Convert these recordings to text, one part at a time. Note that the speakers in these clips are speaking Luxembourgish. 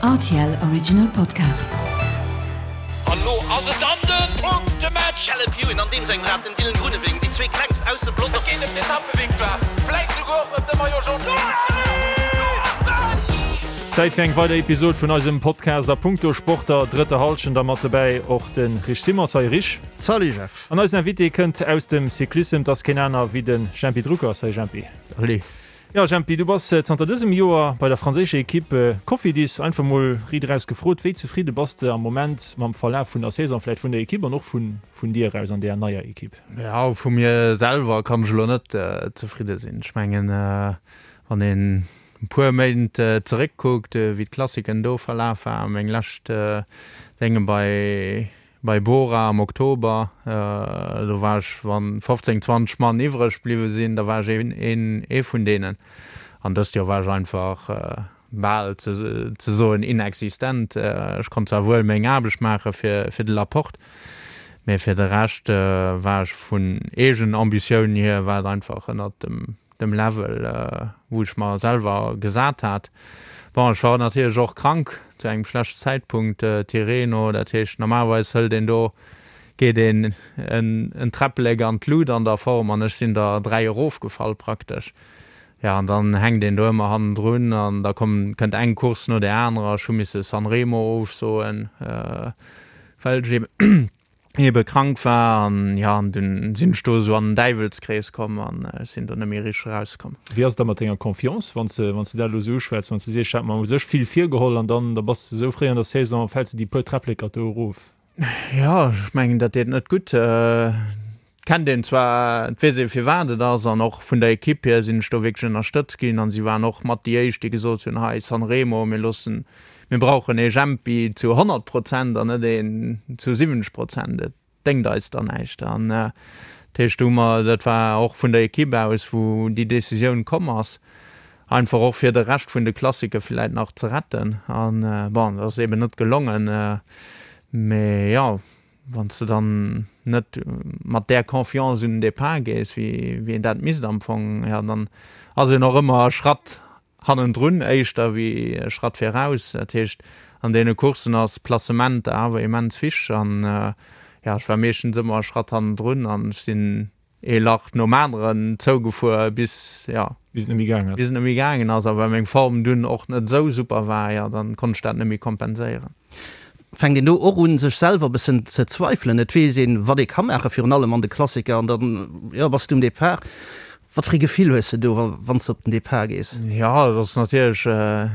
Rtl Original Podcast. An lo ass et dann den Punktematch! Caleb Ewan an deem sengem Rad den Dylan Groenewegen, déi zwee klengst aus dem Pelotong. Et geet ëm d'Etappevictoire, vläit souguer och ëm de Maillot Jaune. Zäit fir eng weider Episod vun eisem Podcast a punkto Sport der drëtter Hallschent a mat dobäi och de Rich Simon. Salut Rich. Salut Jeff. An eisen Invité kënnt aus dem Cyclissem, 't ass keen aner wéi de Jempy Drucker. Salut Jempy. Salut. Jo Jempy, du bass zanter dësem Joer bei der franséischer Equipe Cofidis. Einfach mol riit eraus gefrot, wéi zefridde bass de am Moment mam Verlaf vun der Saison, vläit vun der Equipe an och vun dir eraus an där neier Equipe? Jo, vu mir selwer kann ech elo net zefridde sinn. Ech mengen, wann een e puer Méint zeréckkuckt, wéi d'Klassiken do verlaf waren, meng lescht Dénge bei Bei Bora am Oktober, do war ech, wann 15, 20 Mann iwwreg bliwwe sinn, da war ech een ee vun deenen. An dëst Joer war ech einfach bal ze soen inexistent. Ech konnt zwar wuel meng Aarbecht maache fir fir de Laporte, mee fir de Rescht war ech vun eegen Ambitioun hier war et einfach ënnert dem dem Level, wou ech mer selwer gesat hat. Bon, ech war natierlech och krank zu engem schlechten Zäitpunkt, Tirreno, dat heescht normalerweis hëlt een do, geet een en Träpplek an d'Lut an der Form an ech sinn der 3 erofgefall praktesch. Jo, an dann hänkt een do ëmmer hannendrun an da komm, kënnt eng Course no där anerer. Ech hu misse Sanremo ofsoen, well ech eben ebe krank war an jo an dunn sinn ech do esou an den Däiwelskrees komm an ech sinn do net méi richteg erauskomm. Wéi ass et da mat denger Confiance, wann s de wann s de dat elo esou uschwätz, wann s de sees, ech hat mer u sech vill virgeholl an dann da bass de esou fréi an der Saison, fäls de déi puer Träppleker do erof? Jo, ech mengen dat deet net gutt. Kennt een zwar, et weess ee firwat et ass an och vun der Ekipp hier sinn ech do wierklech ënnerstëtzt ginn an si waren och mat déi éischt déi gesot hunn, hei Sanremo, mir loossen, mir brauchen ee Jempi zu 100 Prozent an net een zu 70 Prozent, et déngt eis dann näischt. An dat heescht do hu mer, dat war och vun der Ekipp aus wou déi Decisioun komm ass, einfach och fir de Rescht vun de Klassike villäit nach ze retten an bon, dat ass eben net gelongen, mee jo. Wann s de dann net mat där Confiance un den Depart gees, wéi een dat misst am Fong, jo, dann ass een och ëmmer e Schratt hannendrun éischter wéi e Schratt viraus. Dat heescht, an deene Courssen ass Placement awer immens wichteg an, jo, ech war meeschtens ëmmer e Schratt hannendrun an ech sinn ee Lach nom aneren zougefuer bis, jo, bis et net méi gaangen ass. Bis et net méi gaangen ass. A well meng Form dunn och net esou super war, jo, dann konnt ech dat net méi kompenséieren. Fänkt een do och un, sech selwer e bëssen ze zweifelen? Et weess een, wat ee ka maachen, virun allem an de Klassiker, an dann, jo, bass du um Depart. Wat fir ee Gefill hues de do, wann s de op den Depart gees? Jo, et ass natierlech,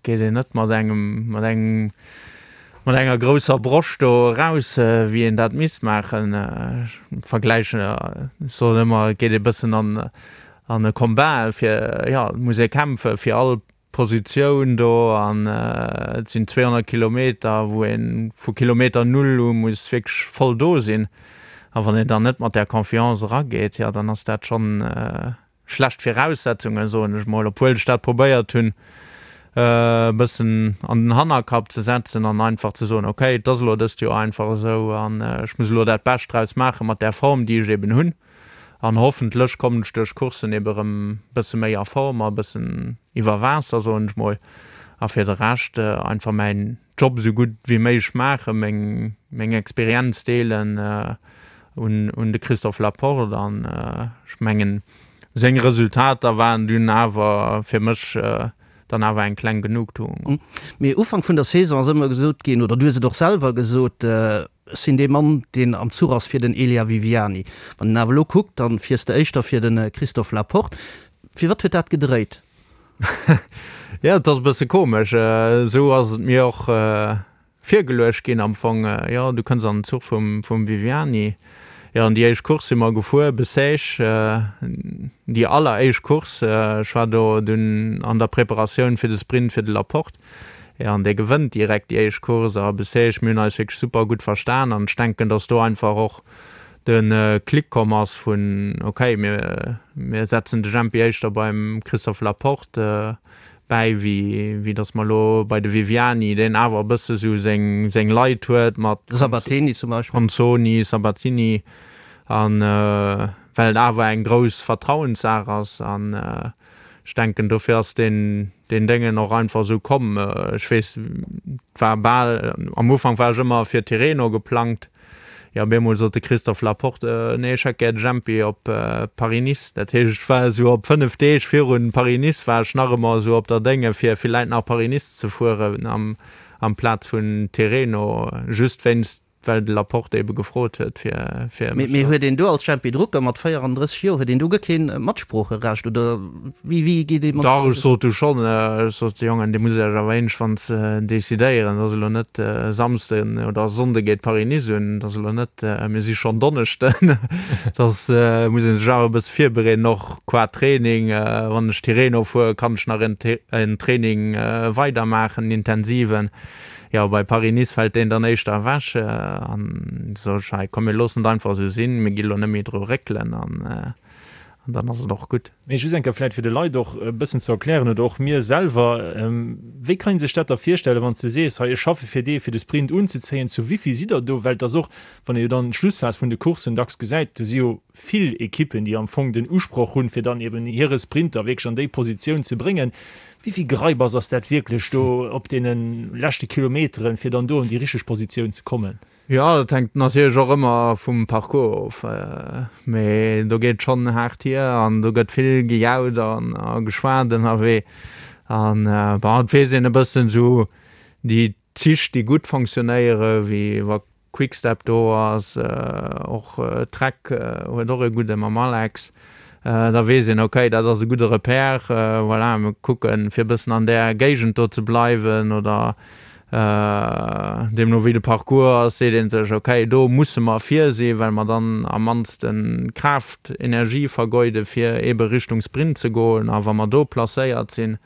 geet een net mat engem, mat engem, mat enger grousser Broscht do eraus, wéi een dat misst maachen. Ech vergläichen, ech soen ëmmer, et geet ee bëssen an, an e Combat, fir, jo, et muss ee kämpfe fir all Positioun do an et sinn 200 Kilometer, wou ee vu Kilometer Null u muss wierklech voll do sinn. A wann een dann net mat där Confiance erageet, jo, dann ass dat schonn schlecht Viraussetzungen, soen ech mol, obwuel ech dat probéiert hunn e bëssen an den Hannerkapp ze setzen an einfach ze soen, okay, et ass elo dëst Joer einfach esou an ech muss elo dat Bescht draus maache mat där Form, déi ech eben hunn an hoffentlech kommen ech duerch Courssen ebe rëm e bësse méi a Form a e bëssen iwwer Waasser, soen ech mol, a fir de Rescht einfach mäin Job esou gutt wéi méiglech maachen, meng meng Experienz deelen un un de Christophe Laporte an ech mengen seng Resultater waren dunn awer fir mech dann awer eng kleng Genugtuung. Mee Ufank vun der Saison ass ëmmer gesot ginn, oder du hues et och selwer gesot, ech sinn dee Mann deen am Zuch ass fir den Elia Viviani. Wann een awer elo kuckt, dann fiers de éischter fir de Christophe Laporte. Firwat huet dat gedréit? Jo, et ass e bësse komesch. Esou ass et mir och virgeluecht ginn am Fong. Jo, du kënns an den Zuch vum, vum Viviani. Jo, an déi éischt Course si mer gefuer, Bessèges, déi alleréischt Course. Ech war do dunn an der Preparatioun fir de Sprint fir de Laporte. Jo, an dee gewënnt direkt déi éischt Course a Bessèges. Mir hunn eis wierklech super gutt verstan an ech denken, datt do einfach och de Klick komm ass vun ok, mir mir setzen de Jempi éischter beim Christophe Laporte bäi wéi wéi datt mer elo bei de Viviani, deen awer e bësse sou seng seng Leit huet mat Sabatini zum Beispill. Consoni, Sabatini an well et awer eng grouss Vertrauenssaach ass an. Ech denken, dofir ass deen, deen Déngen och einfach esou komm. Ech weess, et war bal, am Ufank war ech ëmmer fir Tirreno geplangt. Jo, op eemol sot de Christophe Laporte, Nee, ech hätt gär de Jempi op Paris-Nice. Dat heescht, ech war esou op 5 Deeg virun Paris-Nice war ech nach ëmmer esou op der Dénge fir villäit nach Paris-Nice ze fueren am, amplaz vun Tirreno, just wéinst well de Laporte ebe gefrot huet fir, fir mech. Mee huet een do als Jempy Drucker mat 34 Joer, huet een do guer keen Matsproocherecht oder wéi, wéi geet ee mat. Dach, ech sot du schonn, ech sot, Jongen, dir musst Iech awer iergendwanns decidéieren, et ass elo net Samsden oder Sonnde geet Paris-Nice un, et ass elo net, mir si schonn Donneschden, et ass, muss ee sech awer e bësse virbereeden, och qua Training, wann ech Tirreno fuere kann ech nach en Training weidermaachen, en intensiven. Jo, bei Paris-Nice fält deen dann éischter ewech an sot ech, hei komm mir loossen et einfach esou sinn, mir gi lo net méi dru réckelen an dann ass et och gutt. Mee just eng Kéier vläicht fir de Leit och e bëssen ze erklären oder och mir selwer, Wéi kann ee sech dat da virstellen, wann s de sees, hei ech schaffe fir dee fir de Sprint unzezéien, zu wéivill sidd der do? Well et ass och, wann ee jo dann d'Schlussphas vun de Courssen dacks gesäit, do si jo vill Ekippen, déi am Fong den Usproch hunn, fir dann eben hire Sprinter wierklech an déi Positioun ze bréngen. Wéi vill Gereibass ass dat wierklech do op deene leschte Kilometeren, fir dann do an déi richteg Positioun ze kommen? Jo, dat hänkt natierlech och ëmmer vum Parcours of, mee do geet et schonn haart hier an do gëtt vill gejaut a geschwat ënnerwee. An bon, et weess een e bëssen esou déi Zich, déi gutt fonctionnéieren, wéi wa Quickstep do ass, och Trek huet och e gudde mam Alex, da weess een, okay, dat ass e gudde Repère, voilà, mir kucken, fir e bëssen an där Géigend do ze bleiwen oder deemno wéi de Parcours ass, seet ee sech, okay, do musse mer vir sinn, well mer dann am mannste Kraaft, Energie vergeuden, fir eebe Richtung Sprint ze goen a wa mer do placéiert sinn,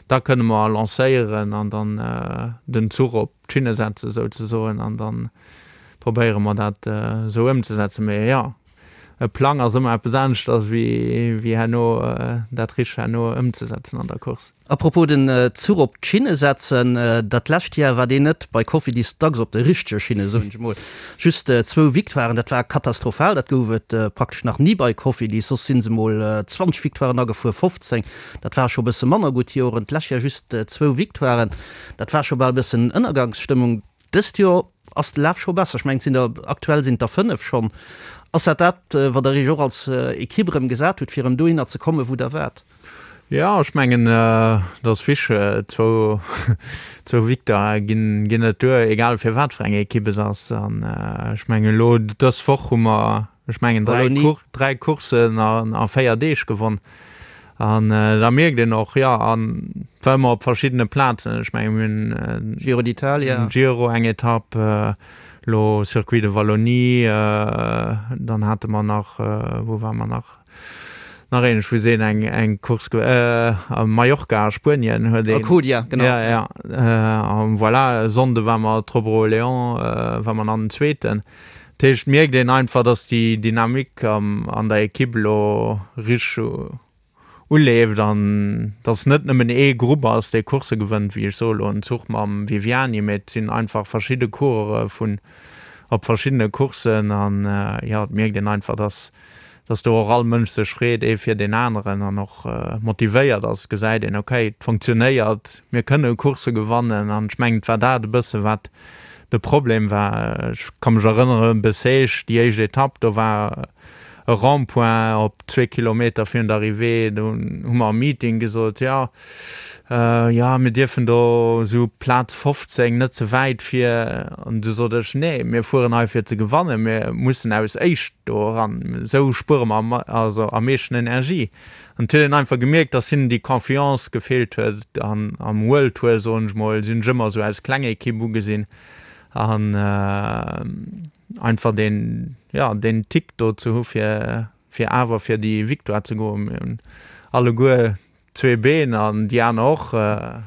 da kënne mer lancéieren an dann den Zuch op d'Schinne setzen souzesoen an da probéiere mer dat esou ëmzesetzen. Mee jo, e Plang ass ëmmer eppes aneschters wéi herno dat richteg herno ëmzesetzen an der Course. A propos den Zuch op d'Schinne setzen, dat lescht Jar war deen net bei Cofidis dacks op de richtege Schinne, soen ech emol. Just zwou Victoiren, dat war katastrophal, dat gouf et praktesch nach ni bei Cofidis, soss si se mol 20 Victoiren agefuer, 15, dat war scho bësse manner gutt Joren. D'lescht Jar just zwou Victoiren, dat war scho bal bëssen Ënnergangsstëmmung. Dëst Joer ass de Laf scho besser, ech mengen et sinn der, aktuell sinn et der 5 schonn. Ass dat dat, wat der Iech och als Ekipp erëm gesat hutt, fir erëm dohinner ze kommen, wou der waart? Jo, ech mengen, et ass wichteg, zwou, zwou Victoirë ginn, ginn net duer, egal fir wat fir eng Ekipp et ass. An ech mengen elo dës Woch hu mer, ech mengen, dräi Cour, dräi Courssen a 4 Deeg gewonn. An da mierkt een och, jo, an et war ëmmer op verschiddene Plazen. Ech menge mir hunn Giro d'Italia, Giro eng Etapp, elo Circuit de Wallonie, dann hate mer nach, wou ware mer nach? Nach een, ech weess een, eng eng Course ge a Mallorca a Spuenien huet een. Alcudia, genau. Ja, ja. An voilà, e Sonnde war mer Tro Léon, war mer an den Zweeten. Dat heescht, et mierkt een einfach, datt déi Dynamik an der Ekipp elo richteg uleeft an datt et net nëmmen ee Grupp ass, dee Coursse gewënnt, wéi ech soe elo en Zuch mam Viviani, mee et sinn einfach verschidde Coureure vun op verschiddene Courssen an jo, et mierkt een einfach, datt datt do och all Mënsch sech freet, ee fir deen aneren an och motivéiert ass, gesäit een, ok, et funktionéiert, mir kënne Coursse gewannen. An ech mengen, et war dat e bësse wat de Problem war. Ech ka mech erënneren, Bessèges, déi éischt Etapp, do war e Rond-point op zwee Kilometer virun der Arrivée, do hu mer am Meeting gesot, jo, Jo, mir dierfen do esou Plaz 15, net ze wäit vir. An du sot ech, Nee, mir fueren hei fir ze gewannen, mir mussen aus éischt do eran, esou spuere mer am, also am meeschten Energie. An et huet een einfach gemierkt, dass hinnen déi Confiance gefeelt huet. An am World Tour, soen ech mol, sinn ech ëmmer esou als kleng Ekipp ugesinn an einfach deen, jo, deen Tick do ze hu fir, fir awer fir déi Victoire ze goen. Mir hunn alleguer zwee Been an déi aner och,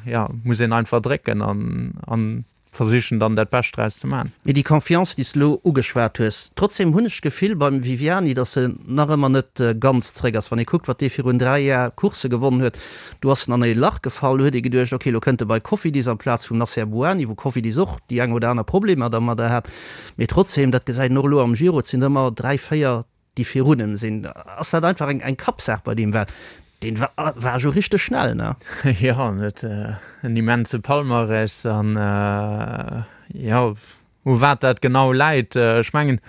jo, muss een einfach drécken an an versichen dann dat Bescht draus ze man. Mee déi Confiance, déi s de elo ugeschwat hues, trotzdem hunn ech d'Gefill beim Viviani, datt en nach ëmmer net ganz zréck ass. Wann ee kuckt, wat dee virun 3 Jar Coursse gewonnen huet, do ass en an ee Lach gefall, do huet ee geduecht, ok, elo kënnt e bei Cofidis amplaz vum Nacer Bouhanni, wou Cofidis och déi eng oder aner Problemer dermadder hat. Mee trotzdem, dat gesäit een och elo am Giro, et sinn ëmmer 3, 4, déi virun em sinn. Ass dat einfach eng Kappsaach bei deem? Well. Deen war jo richteg schnell, ne? Jo, en huet en immense Palmarès an jo, u wat dat genau läit, ech mengen,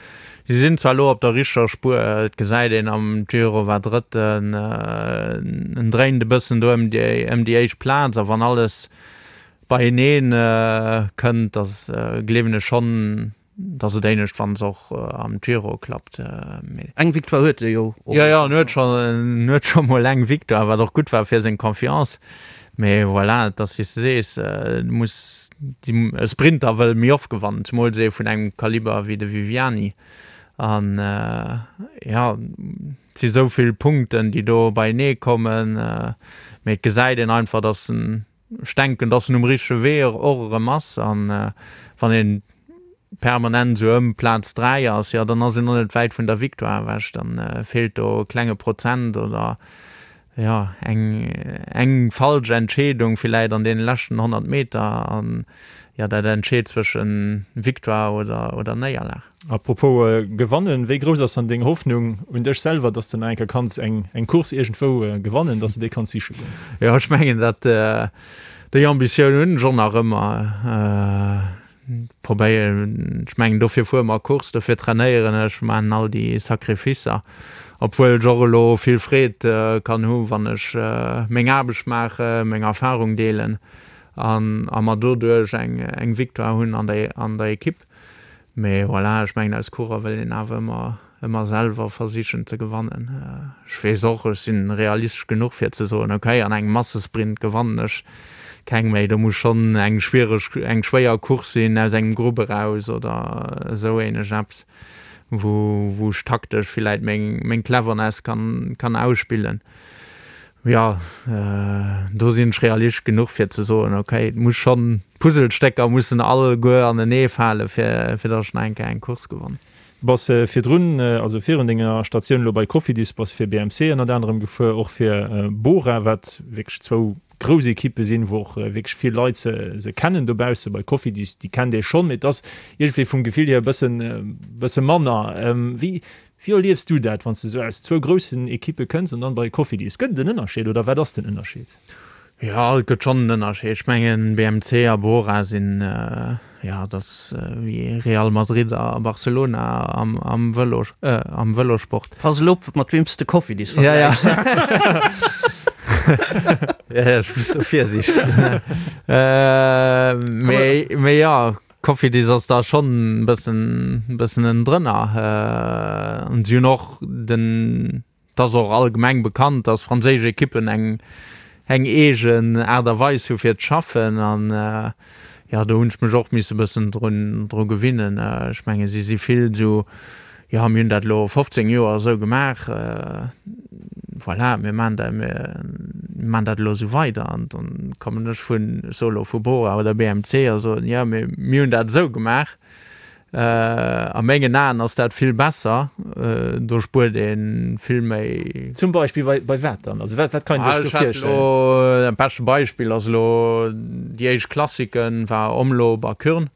si sinn zwar elo op der richteger Spuer, et gesäit een am Giro war Drëtten, en dréint e bëssen do ëm déi ëm déi éischt Plaz a wann alles beienee kënnt, da gleewen ech schonn, Et ass et éinescht wann se och am Giro klappt, mee. Eng Victoire huet e jo och. Jo, jo, en huet scho, en huet scho mol eng Victoire, wat och gutt war fir seng Confiance. Mee voilà, et ass wéi s de sees, du muss, e Sprinter wëll méi oft gewannen, zemools ee vun engem Kaliber wéi de Viviani. An jo, et si sou vill Punkten, déi do beienee kommen, mee et gesäit een einfach, datt en Ech denken, dass en um richtege Wee och erëm ass. An wann een permanent esou ëm Plaz 3 ass, jo, dann ass een och net wäit vun der Victoire ewech. Dann feelt do e klenge Prozent oder, jo, eng, eng falsch Entscheedung villäit an deene leschten 100 Meter. An, jo, dat entscheet zwëschen Victoire oder, oder Néierlag. Apropos gewannen, wéi grouss ass dann deng Hoffnung un dech selwer, dass de nach eng Kéier kanns eng eng Course iergendwou gewannen, dass de déi kanns siche goen? Jo, ech mengen dat déi Ambitioun hunn ech och nach ëmmer. Probéieren, ech mengen dofir fuere mer Course, dofir trainéieren ech, maachen all déi Sacrificer, obwuel ech och elo vill Freed kann hu wann ech meng Aarbecht maachen, meng Erfarung deelen an a mer doduerch eng eng Victoire hunn an der an der Ekipp. Mee voilà, ech mengen als Coureur wëll een awer ëmmer, ëmmer selwer versichen ze gewannen. Ech weess och, ech sinn realistesch genuch fir ze soen, okay, an engem Massesprint gewannen ech keng méi, do muss schonn eng schwiereg, eng schwéier Course sinn aus engem Grupp eraus oder esou ähnlech eppes, wou, wou ech taktesch villäit meng, meng Cleverness kann, kann ausspillen. Jo, do sinn ech realistesch genuch fir ze soen, ok, et muss schonn, d'Puzzlestécker mussen alleguer anenee fale fir fir datt ech nach eng Kéier eng Course gewannen. Bass virdrun, also virun denger Statioun elo bei Cofidis, bass fir BMC ënnert anerem gefuer, och fir Bora, wat wierklech zwou grouss Ekippe sinn, wou och wierklech vill Leit se se kennen dobausse. Bei Cofidis, déi kennt ee schonn, mee et ass iergendwéi vum Gefill hier e bëssen bësse manner. Wéi Wéi erliefs du dat, wann s de sou aus zwou groussen Ekippe kënns an dann bei Cofidis? Gëtt et en Ënnerscheed oder wat ass den Ënnerscheed? Jo, et gëtt schonn en Ënnerscheed. Ech mengen, BMC a Bora sinn, jo, dat ass wéi Real Madrid a Barcelona am Vëlo, am Vëlosport. Pass elo op, mat weem s de Cofidis vergläichs. Jo, jo, ech muss do virsiichteg sinn. Mee, mee jo. Cofidis ass da schonn e bëssen, bëssen ënnendrënner. An si hunn och den, et ass och allgemeng bekannt, datt franséisch Ekippen eng, eng eegen Aart a Weis hu fir ze schaffen. An jo, do hunn ech mech och misse bëssen drun, dru gewinnen. Ech menge si si vill esou Jo, mir hunn dat elo 15 Joer esou gemaach, voilà, mir maachen dat, mir maachen dat elo esou weider. An dann kommen ech vun, ech soe elo vu Bora oder BMC a soen, jo, mee mir hunn dat esou gemaach. A mengen Aen ass dat vill besser, do spuert ee vill méi. Zum Beispill bei, bei wat dann? Also wat, wat kann ee sech do virstellen? Elo, dat beschte Beispill ass elo déi éischt Klassiken war Omloop a Kuurne.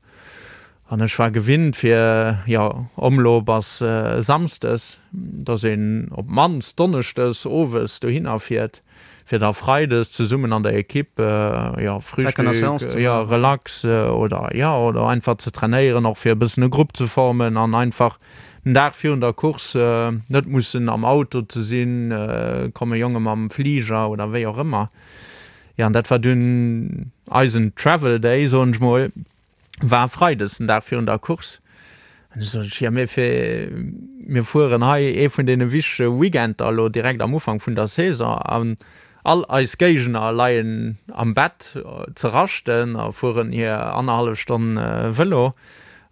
An ech war gewinnt fir, jo, Omloop ass Samsdes, dass een op d'mannst Donneschdes owes dohinner fiert, fir da Freides zesummen an der Ekipp, jo, Frühstück, jo, relax oder, jo, oder einfach ze trainéieren, och fir e bëssen e Grupp ze formen an einfach den Dag virun der Course net mussen am Auto ze sinn, komme Jonge mam Fliger oder wéi och ëmmer. Jo, an dat war dunn eisen Travel Day, soen ech mol. war Freides, den Dag virun der Course. An du sot ech, jo mir fir, mir fueren hei ee vun deene wichtege Weekender elo direkt am Ufank vun der Saison an all eis Géigner leien am Bett ze raschten a fueren hir annerhallef Stonn Vëlo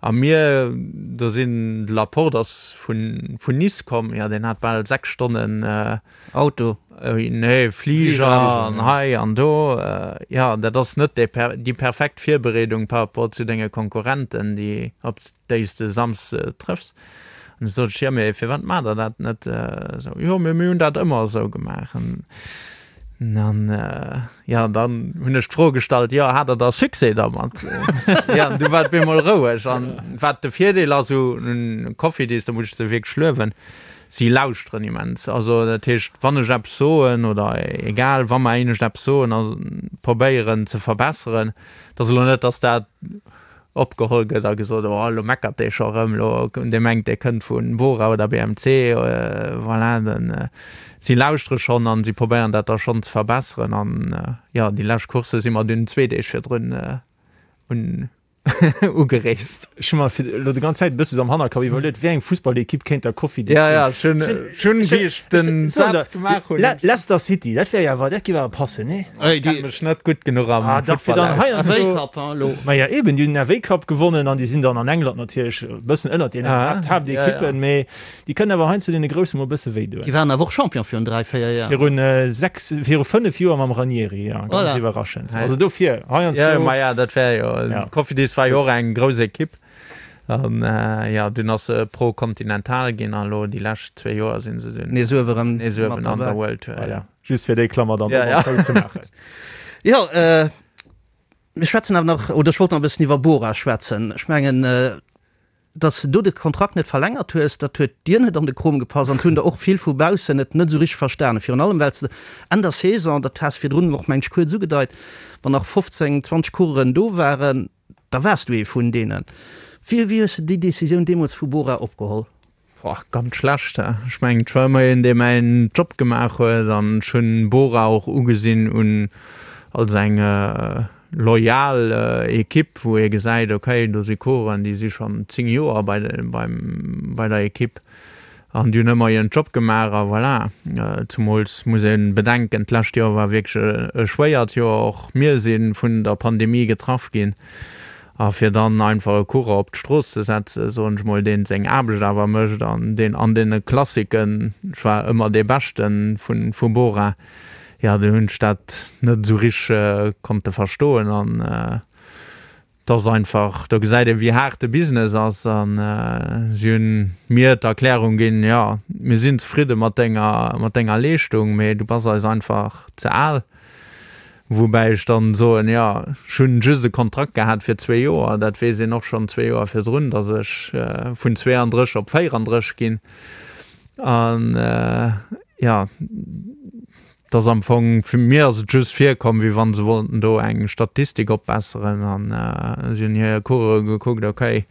a mir, do sinn, de Laporte ass vun Nice komm, jo deen hat bal 6 Stonnen Auto. Nee, Fliger an hei an do. Jo, dat ass net déi perfekt Virbereedung par rapport zu denge Konkurrenten, déi, op déi s de Samsde trëffs. An du sot ech, jo, mee firwat maacht der dat net esou? Jo, mee mir hunn dat ëmmer esou gemaach. An dann, jo, dann hunn ech d'Fro gestallt, jo, hat der da Succès dermat? Jo, an du war et bemol roueg. An wat de Virdeel ass u Cofidis, do muss ech se wierklech luewen,. Si lauschteren immens. Also dat heescht, wann ech eppes soen oder egal, wa mer éinescht eppes soen a probéieren ze verbesseren, et ass elo net, datt dat opgeholl gëtt a gesot, oh elo meckert dee scho erëm, elo dee mengt dee kënnt vu Bora oder BMC, voilà. Den, si lauschtere schonn an si probéieren dat da schonn ze verbesseren an jo, déi lescht Coursse si mer dunn zwee Deeg virdrun un ugereest. Ech hu mer fir elo déi ganz Zäit e bësse sou am Hannerkapp iwwerluet, wéi eng Fussballekipp kéint der Cofidis sinn. Ja, ja, ech hunn, ech hunn, wéi ech den Saz gemaach hunn. Leicester City, dat wär jo awer, dat géif awer passen, nee? Ech kenne mech net gutt genuch am Futtball aus. FA Cup, hein, elo. Maja, eben, déi hunn den FA Cup gewonnen an déi sinn dann an England natierlech e bëssen ënnert deenen Haaptekippen, mee Déi kënnen awer heiansdo deene Grousse mol e bësse wéi doen. Déi waren awer och Champion virun 3, 4 Joer. Virun 6, viru 5 Joer mam Ranieri, jo, ganz Voilà. iwwerraschend. Also dofir, heiansdo. Jo, maja, dat wär jo, Ja. Cofidis war jo och eng grouss Ekipp an jo, dunn ass se Pro Continental ginn a lo déi lescht zwee Joer sinn se dunn Nees uewe rëm nees uewen mat an der derbäi. World Tour, jo. Voilà, just fir déi Klammer dann Ja, och ja. nach zouzemaachen. Jo, mir schwätzen awer nach, oder ech wollt nach e bëssen iwwer Bora schwätzen. Ech mengen, Datt s de do de Kontrakt net verlängert hues, dat huet dir net an de Krom gepasst an et hunn der och vill vu baussen et net esou richteg verstanen. Virun allem well s de Enn der Saison, dat has virdrun och meng ech kuerz ugedeit, wann nach 15, 20 Coureuren do waren, da waars du ee vun deenen. Wéi wéi hues de déi Decisioun deemools vu Bora opgeholl? Boah, ganz schlecht. Ech mengen, et war ëmmer een, dee mäin Job gemaach huet an ech hunn Bora och ugesinn un als eng loyal Ekipp, wou ee gesäit, okay, do si Coureuren, déi si schonn 10 Joer bei beim bei der Ekipp an déi hunn ëmmer hiren Job gemaach a voilà. Zumools muss ee bedenken, d'lescht Joer war wierklech e schwéiert Joer, och mir si vun der Pandemie getraff ginn a fir dann einfach e Coureur op d'Strooss ze setzen, soen ech mol, deen seng Aarbecht awer mécht an deen an deene Klassiken, ech war ëmmer dee Beschte vu Bora, Jo, do hunn ech dat net esou richteg konnte verstoen an et ass einfach, do gesäit een, wéi haart de Business ass an si hunn mir d'Erklärung ginn, jo, mir sinn zefridde mat denger, mat denger Leeschtung, mee du bass eis einfach ze al. Woubäi ech dann soen, jo, ech hunn just e Kontrakt gehat fir zwee Joer, dat weess een och schonn zwee Joer virdrun, datt ech vun 32 op 34 ginn an jo, et ass am Fong, fir mir ass et just virkomm, wéi wann se wollten do eng Statistik opbesseren an si hunn hir Coureuren gekuckt, okay,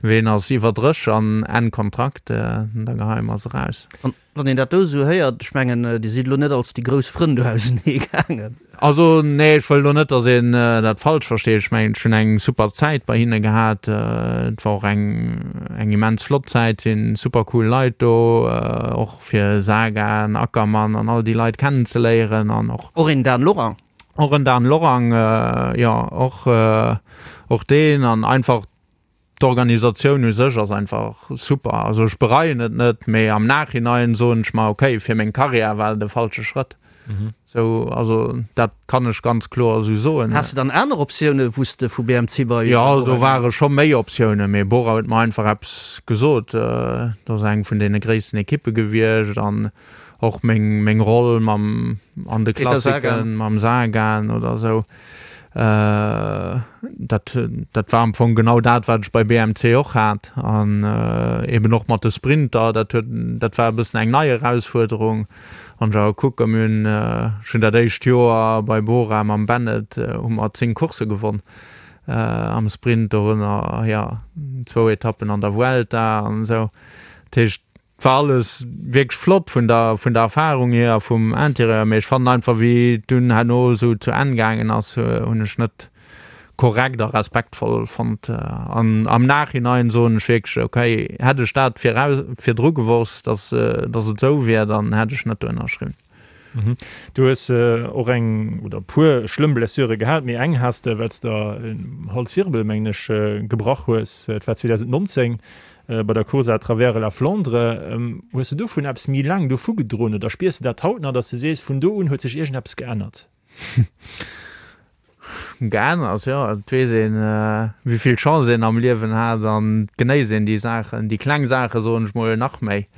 ween ass iwwer 30 an Enn Kontrakt, da geheie mer se raus. An wann een dat do esou héiert, ech mengen, Dir sidd elo net als déi grouss Frënn do ausenee gaangen. Also nee, ech wëll elo net, datt een dat falsch versteet. Ech mengen, ech hunn eng super Zäit bei hinne gehat. Et war och eng eng immens flott Zäit, sinn super cool Leit do, och fir Sagan, Ackermann an all déi Leit kennenzeléieren an och. Och een Dan Lorang. Och en Dan Lorang, jo, och och deen an einfach D'Organisatioun u sech ass einfach super. Also ech bereien et net, mee am Nachhinein soen ech mer, okay, fir meng Karriär war et e falsche Schrëtt. Sou, also dat kann ech ganz kloer esou soen. Has de dann aner Optiounen, wou s de vu BMC bei Jo, Bora do ware scho méi Optiounen, mee Bora huet mer einfach eppes gesot. Dat ass eng vun deene gréissten Ekippe gewiescht an och meng, meng Roll mam, an de Peter Sagan. Klassiken mam Sagan oder esou. Dat, dat war am Fong genau dat, wat ech bei BMC och hat. An eben och mat de Sprinter, dat huet, dat war e bëssen eng nei Erausfuerderung. Wann ech awer kucken, mir hunn, ech hunn dat éischt Joer bei Bora mam Bennett hu mer 10 Coursse gewonn am Sprint, dorënner, jo, zwou Etappen an der Vuelta an esou. Dat heescht, War alles wierklech flott vun der vun der Erfahrung hier a vum Interieur, mee ech fannen einfach wéi et dunn herno esou zu Enn gaangen ass, hunn ech net korrekt a respektvoll fonnt. An am Nachhinein soen ech wierklech, okay, hätt ech dat viraus virdru gewosst, dass dass et esou wier, dann hätt ech net do ënnerschriwwen. Du hues och eng oder e puer schlëmm Blessure gehat, mee eng has de, well s de der en Halswirbel, mengen ech, gebrach hues. Et war 2019 bei der Course à travers la Flandre. Hues de dovun eppes méi laang dovu gedroen oder spiers de dat haut nach, datt s de sees, vun do un huet sech iergendeppes geännert? Geännert, jo. Et weess een, wéi vill Chance een am Liewen hat an et genéisst een déi Saachen, déi kleng Saache soen ech mol, nach méi.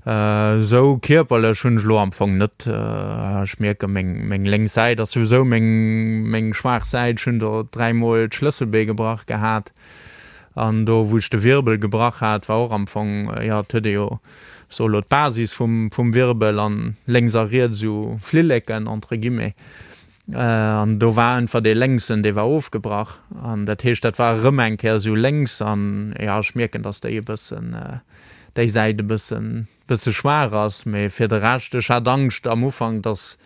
Esou kierperlech hunn ech elo am Fong net, ech mierke meng, meng lénks Säit ass souwisou meng, meng schwaach Säit. Ech hunn do dräimol d'Schlësselbee gebrach gehat an do wou ech de Wirbel gebrach hat, war och am Fong, jo, et huet ee jo. Ech soe lo d'Basis vum vum Wirbel an lénks a riets esou Flilleken entre guillemets. An do war einfach dee lénksen, dee war ofgebrach. An dat heescht, dat war erëm eng Kéier esou lénks. An jo, ech mierken, datt déi e bëssen, déi Säit e bëssen, bësse schwaach ass. Mee fir de Rescht, ech hat Angscht am Ufank, datt,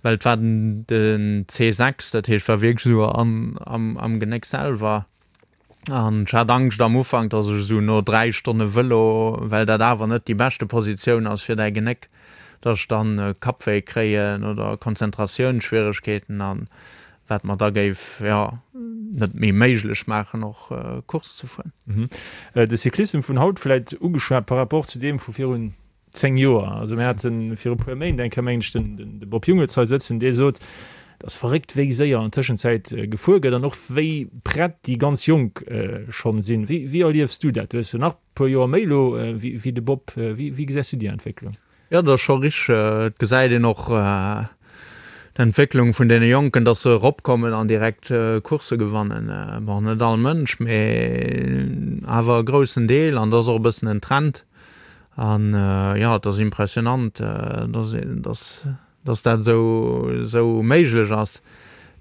well et war den den C6, dat heescht, war wierklech esou an am am Genéck selwer. An ech hat Angscht am Ufank, dass ech esou no 3 Stonne Vëlo, well dat awer net déi beschte Positioun ass fir däi Genéck, dass ech dann Kappwéi kréien oder Konzentratiounsschwieregkeeten an wat mer da géif, jo, net méi méiglech maachen och Course ze fueren. De Cyclissem vun haut vläit ugeschwat par rapport zu deem vu virun 10 Joer. Also mir hate viru puer Méint eng Kéier, mengen ech, den de Bob Jungels hei sëtzen, dee sot, et ass verréckt, wéi séier an Tëschenzäit gefuer gëtt an och wéi prett déi ganz Jonk schonn sinn. Wéi wéi erliefs du dat? Du hues jo nach e puer Joer méi elo wéi de Bob. Wéi wéi gesäis du déi Entwécklung? Jo, dat ass scho richteg. Et gesäit een och d'Entwécklung vun deene Jonken, dass se eropkommen an direkt Coursse gewannen. Bon, net all Mënsch, mee awer e groussen Deel an dat ass och e bëssen en Trend. An jo, et ass impressionant, dass, dass, dass dat esou, esou méiglech ass.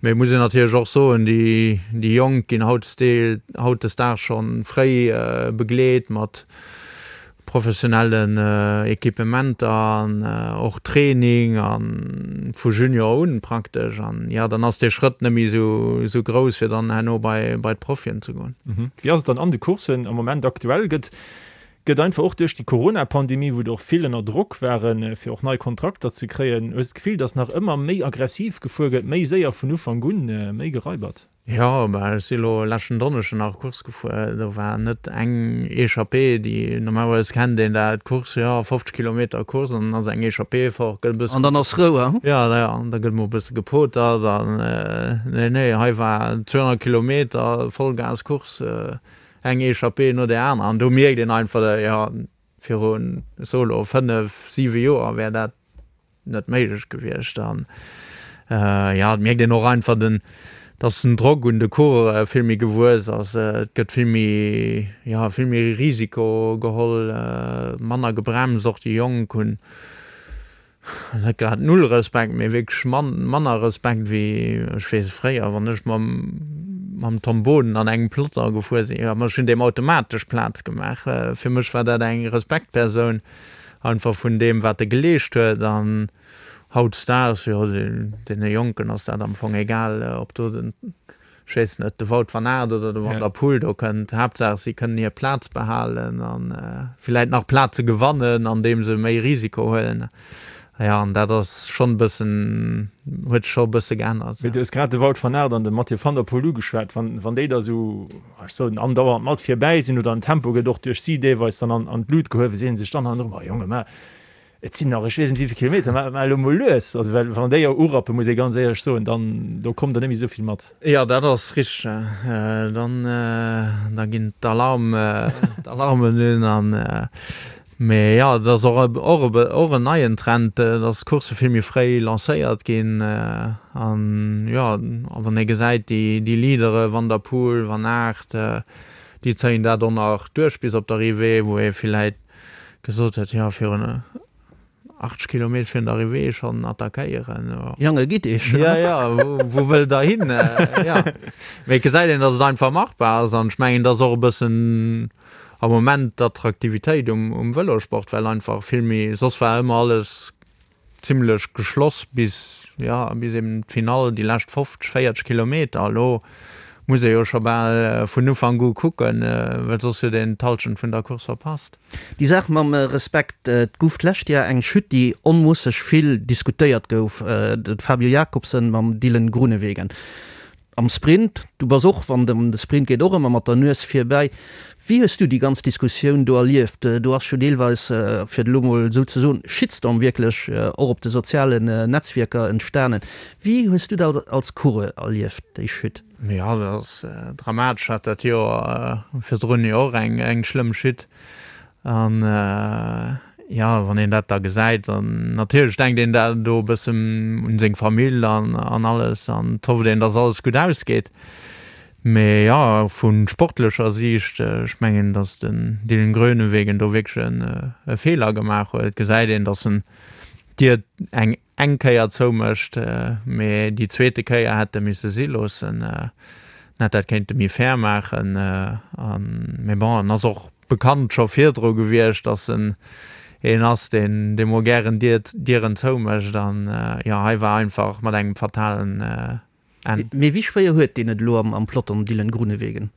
Mee et muss een natierlech och soen, déi, déi Jonk ginn hautdesdeel, hautdesdaags scho fréi begleet mat professionellen Equipementer an och Training a vu Junior un praktesch. An jo, dann ass dee Schrëtt net méi esou, esou grouss, fir dann herno bei, bei d'Profien ze goen. Wéi ass et dann an de Courssen am Moment aktuell? Gëtt Gëtt einfach och duerch déi Corona-Pandemie, wou der och vill ënner Drock waren, fir och nei Kontrakter ze kréien, hues de d'Gefill, datt nach ëmmer méi aggressiv gefuer gëtt, méi séier vun Ufank un, méi geraibert? Jo, bah ech si lo leschten Donneschden nach Course gefuer, do war net eng Echappée, déi normalerweis kennt een dat, d'Course, jo 50 Kilometer Course an dann ass eng Echappée fort, gëtt e bëssen. An dann ass Rou, hein? Jo, jo, an da gëtt mol e bësse gepotert an nee, nee, hei war 200 Kilometer Vollgas Course. Eng Echappée no där anerer an do mierkt een einfach, jo, virun, ech soe lo, 5, 7 Joer wär dat net méiglech gewiescht. An jo, et mierkt een och einfach den, dass den Drock un de Coureure vill méi gewuess ass. Et gëtt vill méi, jo, vill méi Risiko geholl, manner gebremst. Och déi Jonk hunn Net grad null Respekt, mee wierklech manner Respekt wéi, ech weess, fréier, wann ech mam mam Tom Boden an engem Plotter gefuer sinn. Jo, ma ech hunn deem automatesch Plaz gemaach. Fir mech war dat eng Respektpersoun, einfach vun deem, wat e geleescht huet. An hautdesdaags, jo, deene Jonken ass dat am Fong egal, ob do den Ech weess net, de Wout van Aert oder de Van der Poel do kënnt. Haaptsaach si kënnen hir Plaz behalen a villäit nach Plaze gewannen, andeem se méi Risiko huelen. Jo, an dat ass schonn e bëssen, huet sech scho e bësse geännert. Mee du hues grad de Wout van Aert an de Mathieu van der Poel ugeschwat. Wann, wann déi da sou, ech soen, andauernd mat virbäi sinn oder den Tempo gëtt och duerch si deelweis dann an, an d'Lut gehuewen, seeën sech dann hannendrun, Ma Jonge, ma Et sinn nach ech weess net wéivill Kilometer, mä mä elo mol lues. Also well wann déi jo urappen, muss ee ganz éierlech soen, dann do kommt der net méi esou vill mat. Jo, dat ass richteg. Dann da ginn d'Alarm d'Alarmen un an mee jo, et ass och och e och en neien Trend, dass d'Coursse vill méi fréi lancéiert ginn an jo, a wann ee gesäit déi déi Leadere Van der Poel, Van Aert, déi zéien dat och nach duerch bis op d'Arrivée, wou ee villäit gesot huet, jo virun 80 Kilometer virun der Arrivée schonn attackéieren. Jange gitt iech. Jo, jo, wou wëllt der hin? Jo, mee et gesäit een, datt et einfach machbar ass an ech mengen, et ass och e bëssen am Moment d'Attraktivitéit um Vëlosport, well einfach vill méi, soss war ëmmer alles Zimlech geschloss bis, jo, bis eben d'Finall, déi lescht 50, 40 Kilometer. Elo muss ee jo scho bal vun Ufank u kucken, well soss huet een d'Hallschent vun der Course verpasst. Déi Saach mam Respekt, et gouf d'lescht Jar eng Chute, déi onmoosseg vill diskutéiert gouf, de Fabio Jakobsen mam Dylan Groenewegen. Am Sprint, du bass och, wann et ëm de Sprint geet, och ëmmer mat der Nues virbäi. Wéi hues du déi ganz Diskussioun do erlieft? Do ass jo deelweis, fir et elo mol esou ze soen, Shitstorm wierklech och op de sozialen Netzwierker entstanen. Wéi hues du dat als Coureur erlieft, déi Chute? Jo, dat ass dramatesch. Hat dat Joer virdrun jo och eng schlëmm Chute. An jo, wann een dat da gesäit, dann natierlech denkt een da do e bëssen un seng Famill an an alles an et hofft een, dass alles gutt ausgeet. Mee jo, vu sportlecher Siicht, ech mengen, datt den Dylan Groenewegen do wierklech e Feeler gemaach huet. Et gesäit een, datt en d'Dier eng eng Kéier zoumécht, mee déi zweete Kéier hätt e misse si loossen. En hätt dat kéinte méi fair maachen. Mee bon, en ass och bekannt scho virdru gewiescht, datt en een ass, deen dee mol gären Dieren zoumécht. An jo, hei war einfach mat engem fatalen Enn. Mee wéi schwéier huet deen et elo am Peloton, Dylan Groenewegen?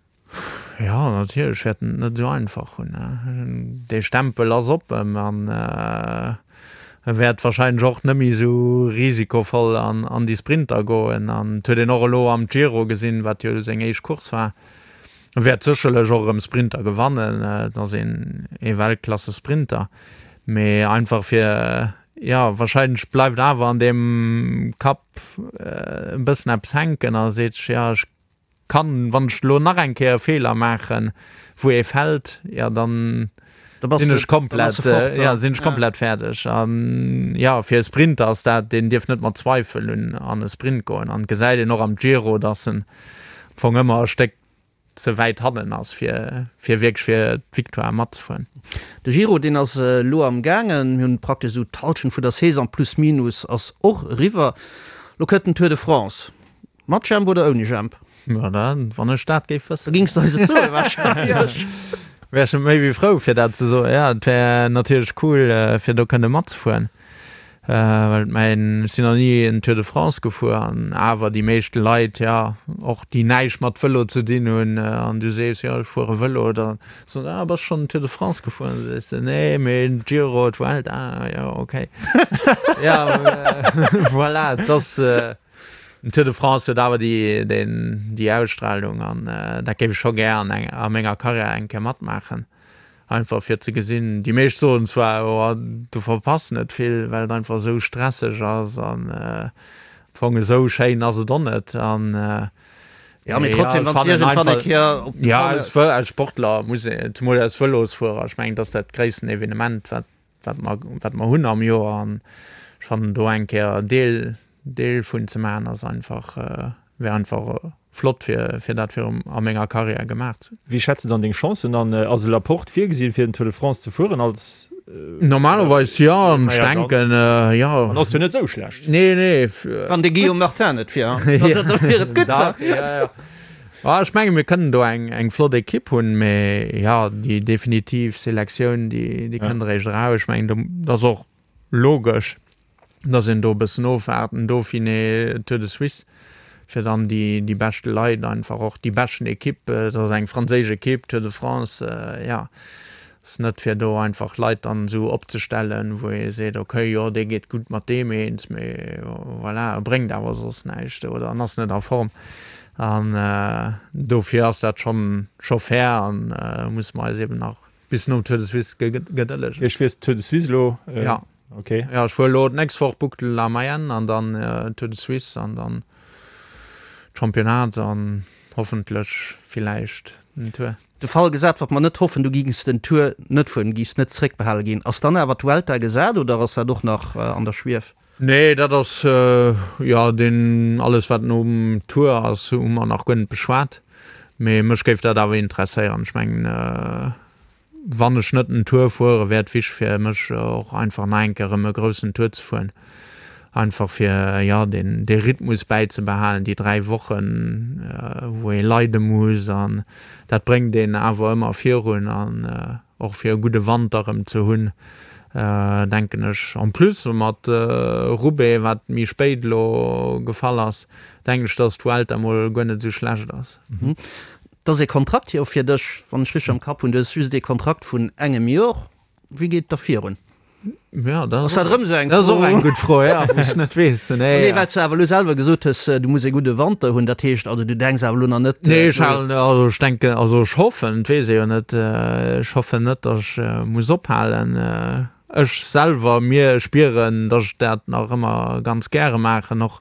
Jo, natierlech wäert en et net esou einfach hunn. Dee Stempel ass op em an e wäert warscheinlech och net méi esou risikovoll an déi Sprinter goen. An et huet een och elo am Giro gesinn, wat jo seng éischt Course war, e wäert sécherlech och erëm Sprinter gewannen, et ass een ee Weltklasse-Sprinter, mee einfach fir, jo, warscheinlech bleift awer an deem Kapp e bëssen eppes hänken a seet sech, jo, ech kann, wann ech elo nach eng Kéier e Feeler maachen, wou ee fält, jo dann sinn ech komplett, jo, sinn ech komplett fäerdeg. An jo, fir e Sprinter ass dat, deen dierf net mat Zweifel un an e Sprint goen. An et gesäit een och am Giro, datt en am Fong ëmmer e Stéck ze wäit hannen ass, fir fir wierklech fir d'Victoire matzefueren. De Giro, deen ass elo am gaangen. Mir hunn praktesch esou d'Hallschent vun der Saison plus minus ass och eriwwer. Elo kënnt den Tour de France. Mat Jemp oder ouni Jemp? Jo, da, wann ech dat géif wëssen. Da gings de eis et soen wahrscheinlech. Wär ech méi wéi frou fir dat ze soen. Jo, et wär natierlech cool fir do kënne matzefueren, well et mäin, ech sinn nach ni en Tour de France gefuer an awer déi meescht Leit, jo, och déi näischt mat Vëlo ze dinn hunn an du sees, jo ech fuere Vëlo, da soen se, ah bass schonn en Tour de France gefuer? An du sees de, nee, mee Giro, d'Vuelta, ah jo, okay. Jo, voilà, et ass. Den Tour de France huet awer déi, déi Ausstrahlung an dat géif ech scho gär an eng, a menger Karriär eng Kéier matmaachen. Einfach fir ze gesinn, déi meescht soen zwar, oh du verpass net vill, well et einfach esou stresseg ass an am Fong esou schéin ass et och net an Ja, mee trotzdem, wann s de iergendwann eng Kéier op de Ja, als Sportler muss een, zemol als Vëlosfuerer, ech mengen, dat ass dat gréissten Evenement wat wat mer, wat mer hunn am Joer an ech fannen do eng Kéier Deel, Deel vun ze maachen ass einfach, wär einfach flott fir, fir dat virum a menger Karriär gemaach ze hunn. Wéi schätz de dann deng Chancen an? Ass e Laporte virgesinn fir den Tour de France ze fueren als? Normalerweis jo, an ech denken jo. An ass jo net esou schlecht. Nee, nee. Wann de Guillaume Martin net wier, da wier et gutt. Dach, jo, jo. Ah, ech menge mir kënnen do eng, eng flott Ekipp hunn, mee jo, déi definitiv Selektioun, déi, déi kënnt eréischt eraus. Ech mengen, do, dat ass och logesch, datt een do e bëssen ofwaart, den Dauphiné, Tour de Suisse, fir dann déi, déi beschte Leit einfach och, déi beschten Ekipp, dat ass eng franséisch Ekipp, Tour de France, jo. Ass net fir do einfach Leit dann esou opzestellen, wou ee seet, okay, jo dee geet gutt mat deem eens, mee voilà, e bréngt awer soss näischt oder en ass net a Form. An dofir ass dat schonn scho fair an musse mer eis eben nach bis nom Tour de Suisse gedëllegen. Iech fiers Tour de Suisse elo? Ja. Okay. Ja, ech fuer elo d'nächst Woch Boucle de la Mayenne an dann Tour de Suisse an dann Championnat an hoffentlech villäicht den Tour. De Fall gesat, wat mer net hoffen, du gings den Tour net fueren, du giffs net zréckbehale ginn, ass dann awer d'Vuelta gesat oder ass dat och nach an der Schwief? Nee, dat ass, jo, deen, alles wat nom Tour ass, hu mer nach guer net beschwat. Mee mech géif dat awer interesséieren. Ech mengen, wann ech net den Tour fuere, wär et wichteg fir mech och einfach nach eng Kéier erëm e groussen Tour ze fueren. Einfach fir, jo, deen, dee Rhythmus bäizebehalen, déi 3 Wochen, wou ee leide muss an dat bréngt een awer ëmmer virun an och fir e gudde Wanter erëm ze hunn, denken ech. En plus mat Roubaix, wat méi spéit elo gefall ass, denken ech, dass d'Vuelta mol guer net esou schlecht ass. Et ass ee Kontrakt jo fir dech, wann ech richteg am Kapp hunn. Du hues just ee Kontrakt vun engem Jor. Wéi geet et da virun? Ja, dat ass erëm esou eng Fro. Dat ass och eng gutt Fro, ja, wou ech net weess. Nee, nee, well s de awer elo selwer gesot hues, du muss ee gudde Wanter hunn. Dat heescht also, du denks awer elo nach net. Nee, ech halen, also ech denken, also ech hoffen, et weess ee jo net, ech hoffen net, datt ech muss ophalen. Ech selwer, mir spieren, datt ech dat nach ëmmer ganz gäre maachen, och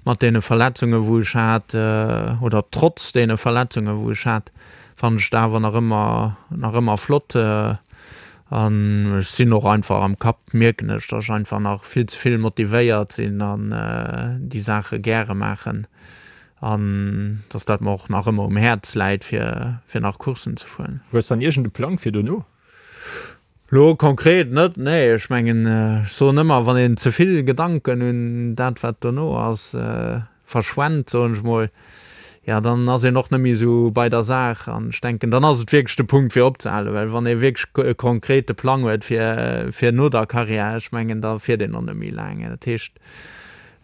mat deene Verletzungen, wou ech hat, oder trotz deene Verletzungen, wou ech hat, fannen ech et awer nach ëmmer, nach ëmmer flott. An ech sinn och einfach am Kapp, mierken ech, datt ech einfach nach vill ze vill motivéiert sinn an déi Saache gäre maachen. An dass dat mer och nach ëmmer um Häerz läit, fir, fir nach Courssen ze fueren. Hues dann iergend e Plang fir dono? Lo konkret net, nee. Ech mengen, ech soen ëmmer, wann een ze vill Gedanken un dat, wat dono ass, verschwent, soen ech mol, jo, dann ass een och net méi esou bei der Saach. An ech denken, dann ass et wierklech de Punkt, fir opzehalen. Well wann ee wierklech e konkrete Plang huet fir, fir no der Karriär, ech mengen, da fiert een och net méi laang. Dat heescht,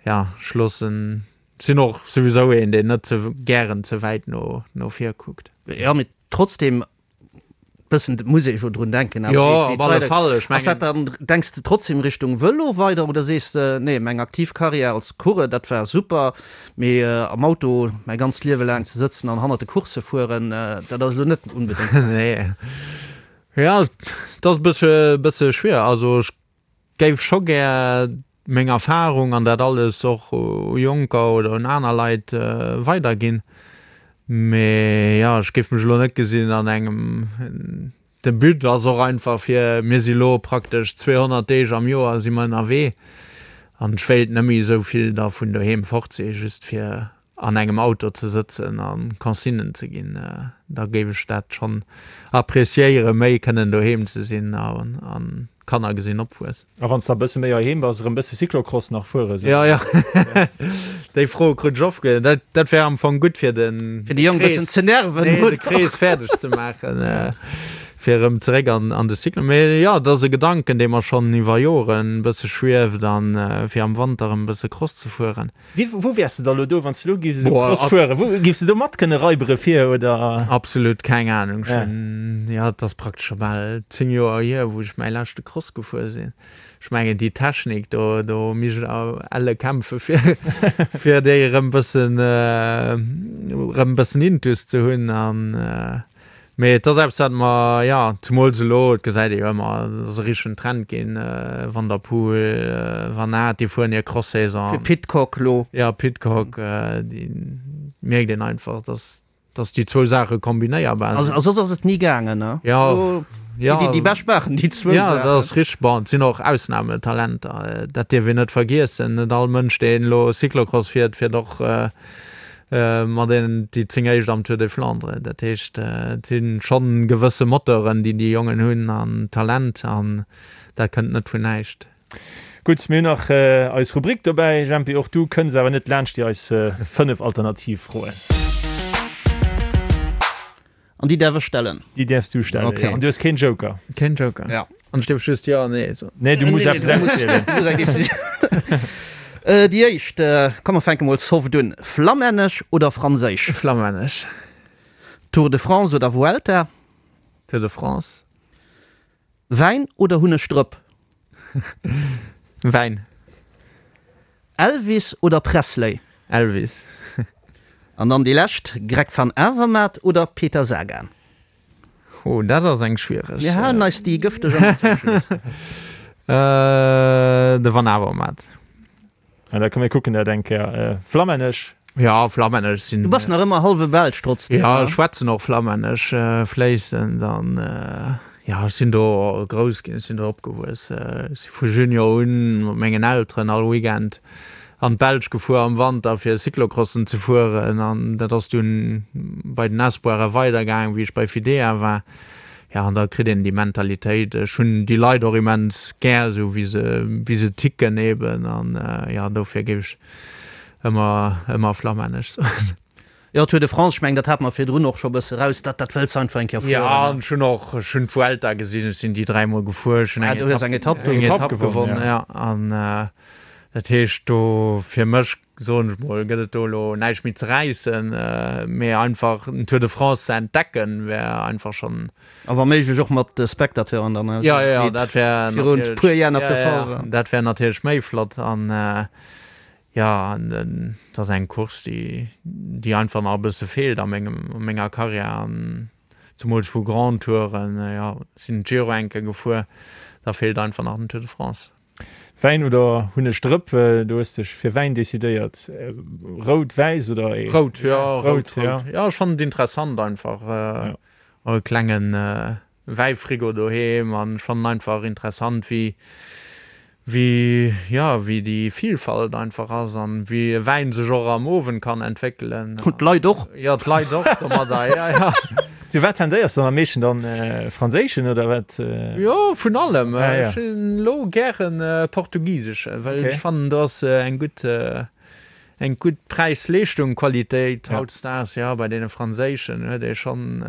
jo, ech loossen, sinn och souwisou een, deen net ze gären ze wäit no, no vir kuckt. Jo, mee trotzdem Bëssen muss ee jo drun denken. Awer Jo, wéi op alle Fall. Ech Ass dat mengen. dann, denks de trotzdem Richtung Vëlo weider oder sees de, nee, meng aktiv Karriär als Coureur, dat war super, mee am Auto mäi ganzt Liewe laang ze sëtzen an hannert de Coursse fueren, dat ass elo net onbedéngt mäin. Nee. Jo, et ass e bëssche, bësse schwier. Also ech Géif scho gär meng Erfahrung an dat alles och u Jonker oder un aner Leit weiderginn. Mee jo, ech géif mech elo net gesinn an engem, de But ass och einfach fir, mir si lo praktesch 200 Deeg am Joer si mer ënnerwee an ech wéilt net méi esou vill da vun doheem fort si just fir an engem Auto ze sëtzen a Consignen ze ginn, da géif ech dat schonn appreciéieren, méi kënnen doheem ze sinn an d'Kanner gesinn opwuessen. A wann s de e bësse méi heiheem bass, erëm bësse Cyclocross nach fuere sou? Jo, jo, déi Fro krut ech oft. Dat, dat wär am Fong gutt fir de Fir déi Jong bëssen ze nerven, nee, de Krees fäerdeg ze maachen, fir erëm zeréck an, an de Cyclo. Mee jo, dat ass e Gedanken, dee mer schonn iwwer Joren e bësse schwieft an fir am Wanter erëm e bësse Cross ze fueren. Wéi, wou wäers de da lo do, wann s de lo giffs esou Cross fueren? Wou giffs de do mat kënne raibere fir, oder? Absolut keng Ahnung. Ech hunn, jo, et ass praktesch scho bal 10 Joer hier, wou ech mäi leschte Cross gefuer sinn. Ech mengen, déi Technik do, do misst ech elle kämpfe fir, fir déi erëm bëssen, erëm bëssen intus ze hunn an. Mee et ass eppes, wat mer, jo, zemools elo, et gesäit ee jo ëmmer, et ass e richtegen Trend ginn, Van der Poel, Van Aert, déi fueren hir Cross-Saison. Fir Pidcock elo. Jo, Pidcock, déi mierkt een einfach, dass, dass déi zwou Saache kombinéierbar sinn. A soss ass et ni gaangen, ne? Jo, jo. Déi, déi bescht maachen déi zwou Saachen. Jo, dat ass richteg. Bon, et sinn och Ausnametalenter, dat dierf een net vergiessen. Net all Mënsch, deen elo Cyclocross fiert, fiert och Mat deenen déi 10 éischt am Tour des Flandres. Dat heescht, et si schonn gewësse Moteuren, déi déi Jongen hunn an Talent an dat kënnt net vun näischt. Gutt, mir hunn nach eis Rubrik dobäi. Jempi, och du kënns awer net laanscht déi eis 5 Alternativfroen. An déi däerf ech stellen? Déi däerfs du stellen, okay. Jo. An du hues keen Joker? Keen Joker. Ja. An ech dierf just Jo an Nee soen? Nee, du muss eppes auswielen. Du muss eng Decisioun. Déi éischt, komm mer fänke mol soft un. Flammännesch oder Franséisch? Flammännesch. Tour de France oder Vuelta? Tour de France. Wäin oder Hunnegdrëpp? Wäin. Elvis oder Presley? Elvis. An dann déi lescht, Greg van Avermaet oder Peter Sagan? Oh, dat ass eng schwiereg. Mir halen eis déi gëfteg ëmmer zum Schluss. De Van Avermaet. An da komm mir kucken dat eng Kéier. Flammännesch? Ja, flammännesch sinn. Du bass nach ëmmer hallwe Belsch trotzdem, Ja, ech schwätzen och flammännesch fléissend an ja, ech sinn do grouss ginn, ech sinn do opgewuess. Ech si vu Junior un mat mengen Elteren all Weekend an d'Belsch gefuer am Wanter fir Cyclocrossen ze fueren an dat ass dunn bei den Espoiren weidergaangen, wéi ech bei Fidea war. Jo, an da kritt een déi Mentalitéit. Ech hunn déi Leit och immens gär, esou wéi se, wéi se ticken eben. An jo, dofir géif ech ëmmer, ëmmer flammännesch soen. Jo, Tour de France, ech mengen, dat hate mer virdrun och scho e bësse raus, dat, dat wëlls de einfach eng Kéier fueren. Jo, an ech hunn och, ech hunn d'Vuelta gesinn, ech sinn déi dräimol gefuer, ech hunn eng Etapp, eng Etapp, eng Etapp gewonnen, jo. An dat heescht do fir mech soen ech mol, gëtt et do elo näischt méi ze räissen, mee einfach den Tour de France ze entdecken, wär einfach schonn. A wa méiglech och mat Spectateuren dann, esou wéi et virun e puer Jar nach de Fall war. Dat wär natierlech méi flott. An jo, et ass eng Course, déi, déi einfach nach e bësse feelt a mengem, a menger Karriär. An zemools vu Grand Touren, jo, sinn d'Giro eng Kéier gefuer, da feelt einfach nach den Tour de France. Wäin oder Hunnegdrëpp? Du hues dech fir Wäin decidéiert. Rout, wäiss oder ee? Rout, jo, rout, rout. Jo, ech fannen et interessant einfach. Och e klenge Wäifrigo doheem an ech fannen einfach interessant wéi, Wéi, jo, wéi déi Vielfalt einfach ass an wéi e Wäin sech och am Owend kann entwéckelen. Und d'Leit och. Jo, d'Leit och domadder, jo, jo. Zu wat tendéiers de dann am meeschten dann? Franséischen oder wat? Jo, vun allem. Ech hunn elo gären portugiseschen, well ech fannen do ass eng gutt, eng gutt Präis-Leeschtung Qualitéit. Hautdesdaags, jo, bei deene franséischen huet ee schonn,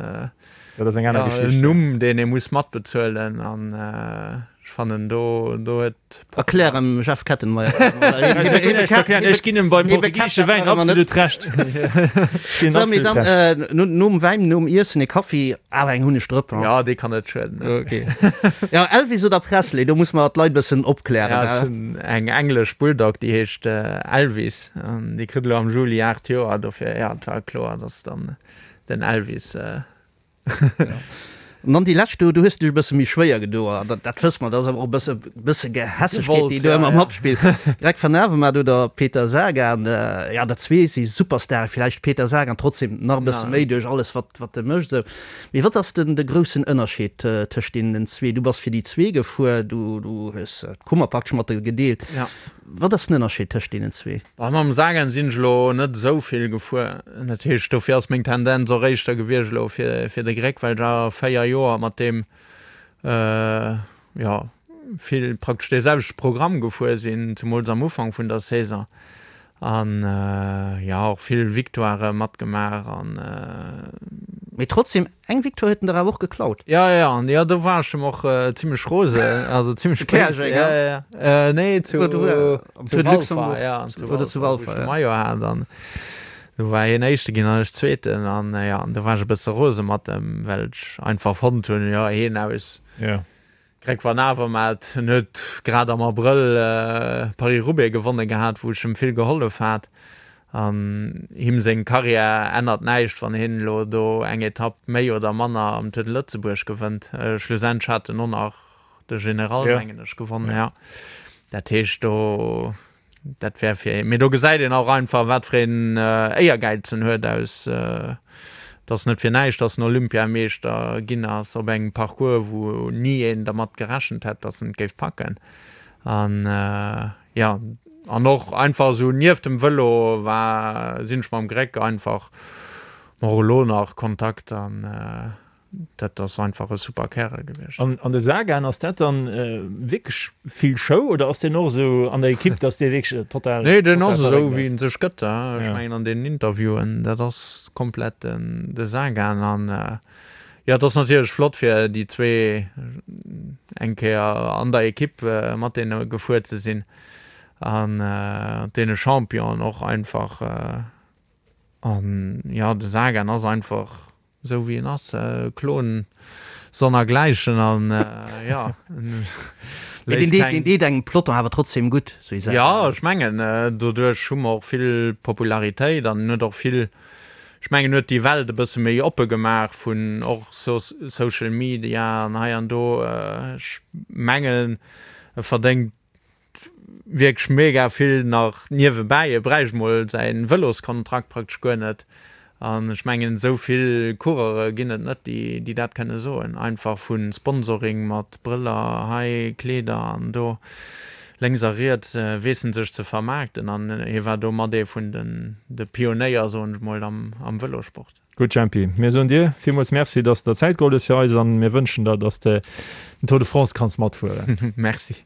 Dat ass eng aner Geschicht. En Numm, deen ee muss matbezuelen an ech fannen do do huet. Erklär em Jeff Kettenmeyer. Ech ginn em beim portugiesesche Wäin absolut Recht. Sou, mee dann nom Wäin, nom Iessen, e Kaffi, awer eng Hunnegdrëpp, hein? Jo, dee kann net schueden. Ok. Jo, Elvis oder Presley, do muss mer d'Leit bëssen opklären. Ja, ech hunn eng englesch Bulldog, déi heescht Elvis an déi kritt elo am Juli 8 Joer, dofir, jo, et war kloer, dass dann Den Elvis. An dann déi lescht do, do hues de dech e bësse méi schwéier gedo, an dat, dat wësse mer, dat ass awer och e bësse, bësse Gehässegkeet, déi do ëmmer matspillt. Greg van Avermaet oder Peter Sagan, jo, dat zwee si Superstare, villäicht Peter Sagan trotzdem nach e bësse méi duerch alles, wat, wat e mécht esou. Mee wat ass den, de groussen Ënnerscheed tëscht deenen zwee? Du bass fir déi zwee gefuer, du, du hues d'Kummer praktesch mat de gedeelt. Wat ass den Ënnerscheed tëscht deenen zwee? Bah, mam Sagan sinn ech elo net esou vill gefuer. Dat heescht, dofir ass meng Tendenz och éischter gewiescht elo fir, fir de Greg, well ech awer 4 Joer mat deem, jo, vill praktesch dee selwechte Programm gefuer sinn, zemools am Ufank vun der Saison. An, jo, och vill Victoirë matgemaach an. Mee trotzdem, Eng Victoire huet en der awer och geklaut. Ja, ja, an ja, do war ech em och zimlech rose, also zimlech béis. Käerjeng, ja? Ja, ja. Nee, zu, Zu zu Walfer, ja, zu Walfer, zu Walfer, wou ech de Maillot hat an do war hien Éischte ginn an ech Zweeten an ja, an do war ech e bësse rose mat em, well ech einfach fonnt hunn, jo, hien aus. Ja. Greg Van Avermaet, en huet grad am Abrëll Paris-Roubaix gewonne gehat, wou ech em vill gehollef hat. An him seng Karriär ännert näischt, wann hien elo do eng Etapp méi oder manner am Tour de Lëtzebuerg gewënnt. Schlussendlech hat en och nach de General, mengen ech, gewonnen, jo. Dat heescht do. Dat wär fir, mee do gesäit een och einfach, wat fir een Éiergäiz en huet aus, et ass net fir näischt, dass en Olympiameeschter ginn ass op engem Parcours, wou ni een dermat gerechent hätt, dass en et géif packen. An jo, an och einfach esou nieft dem Vëlo war, sinn ech mam Greg einfach, och elo nach, Kontakt an. Dat ass einfach e super Kärel gewiescht. An de Sagan, ass dat dann wierklech vill Show oder ass deen och esou an der Ekipp, dass dee wierklech total. Nee, deen ass esou wéi en sech gëtt. Ech mengen an deenen Interviewen, dat ass komplett den de Sagan. An jo, et ass natierlech flott fir déi zwee eng Kéier an der Ekipp mat deene gefuer ze sinn an deene Championen och einfach. An jo, de Sagan ass einfach Esou wéi en ass, Klon sonnergläichen an jo. Mee deen deet, deen deet engem Peloton awer trotzdem gutt, sou ee Sagan. Jo, ech mengen, doduerch hu mer och vill Popularitéit an en huet och vill, ech mengen, en huet déi Welt e bësse méi oppe gemaach vun och Social Media an hei an do. Ech mengen, e verdéngt wierklech mega vill nach niewebäi. E bräicht mol säin Vëloskontrakt praktesch guer net. An ech mengen esou vill Coureure ginn et net, déi déi dat kënne soen. Einfach vu Sponsoring mat Brëller hei, Kleeder an do lénks a riets weess en sech ze vermaarkten. An hie war do mat ee vun den de Pionéier, soen ech mol, am am Vëlosport. Gutt Jempi, mir soen dir villmools Merci, dass de der Zäit geholl hues fir eis an mir wënschen der, dass de den Tour de France kanns matfueren. Merci.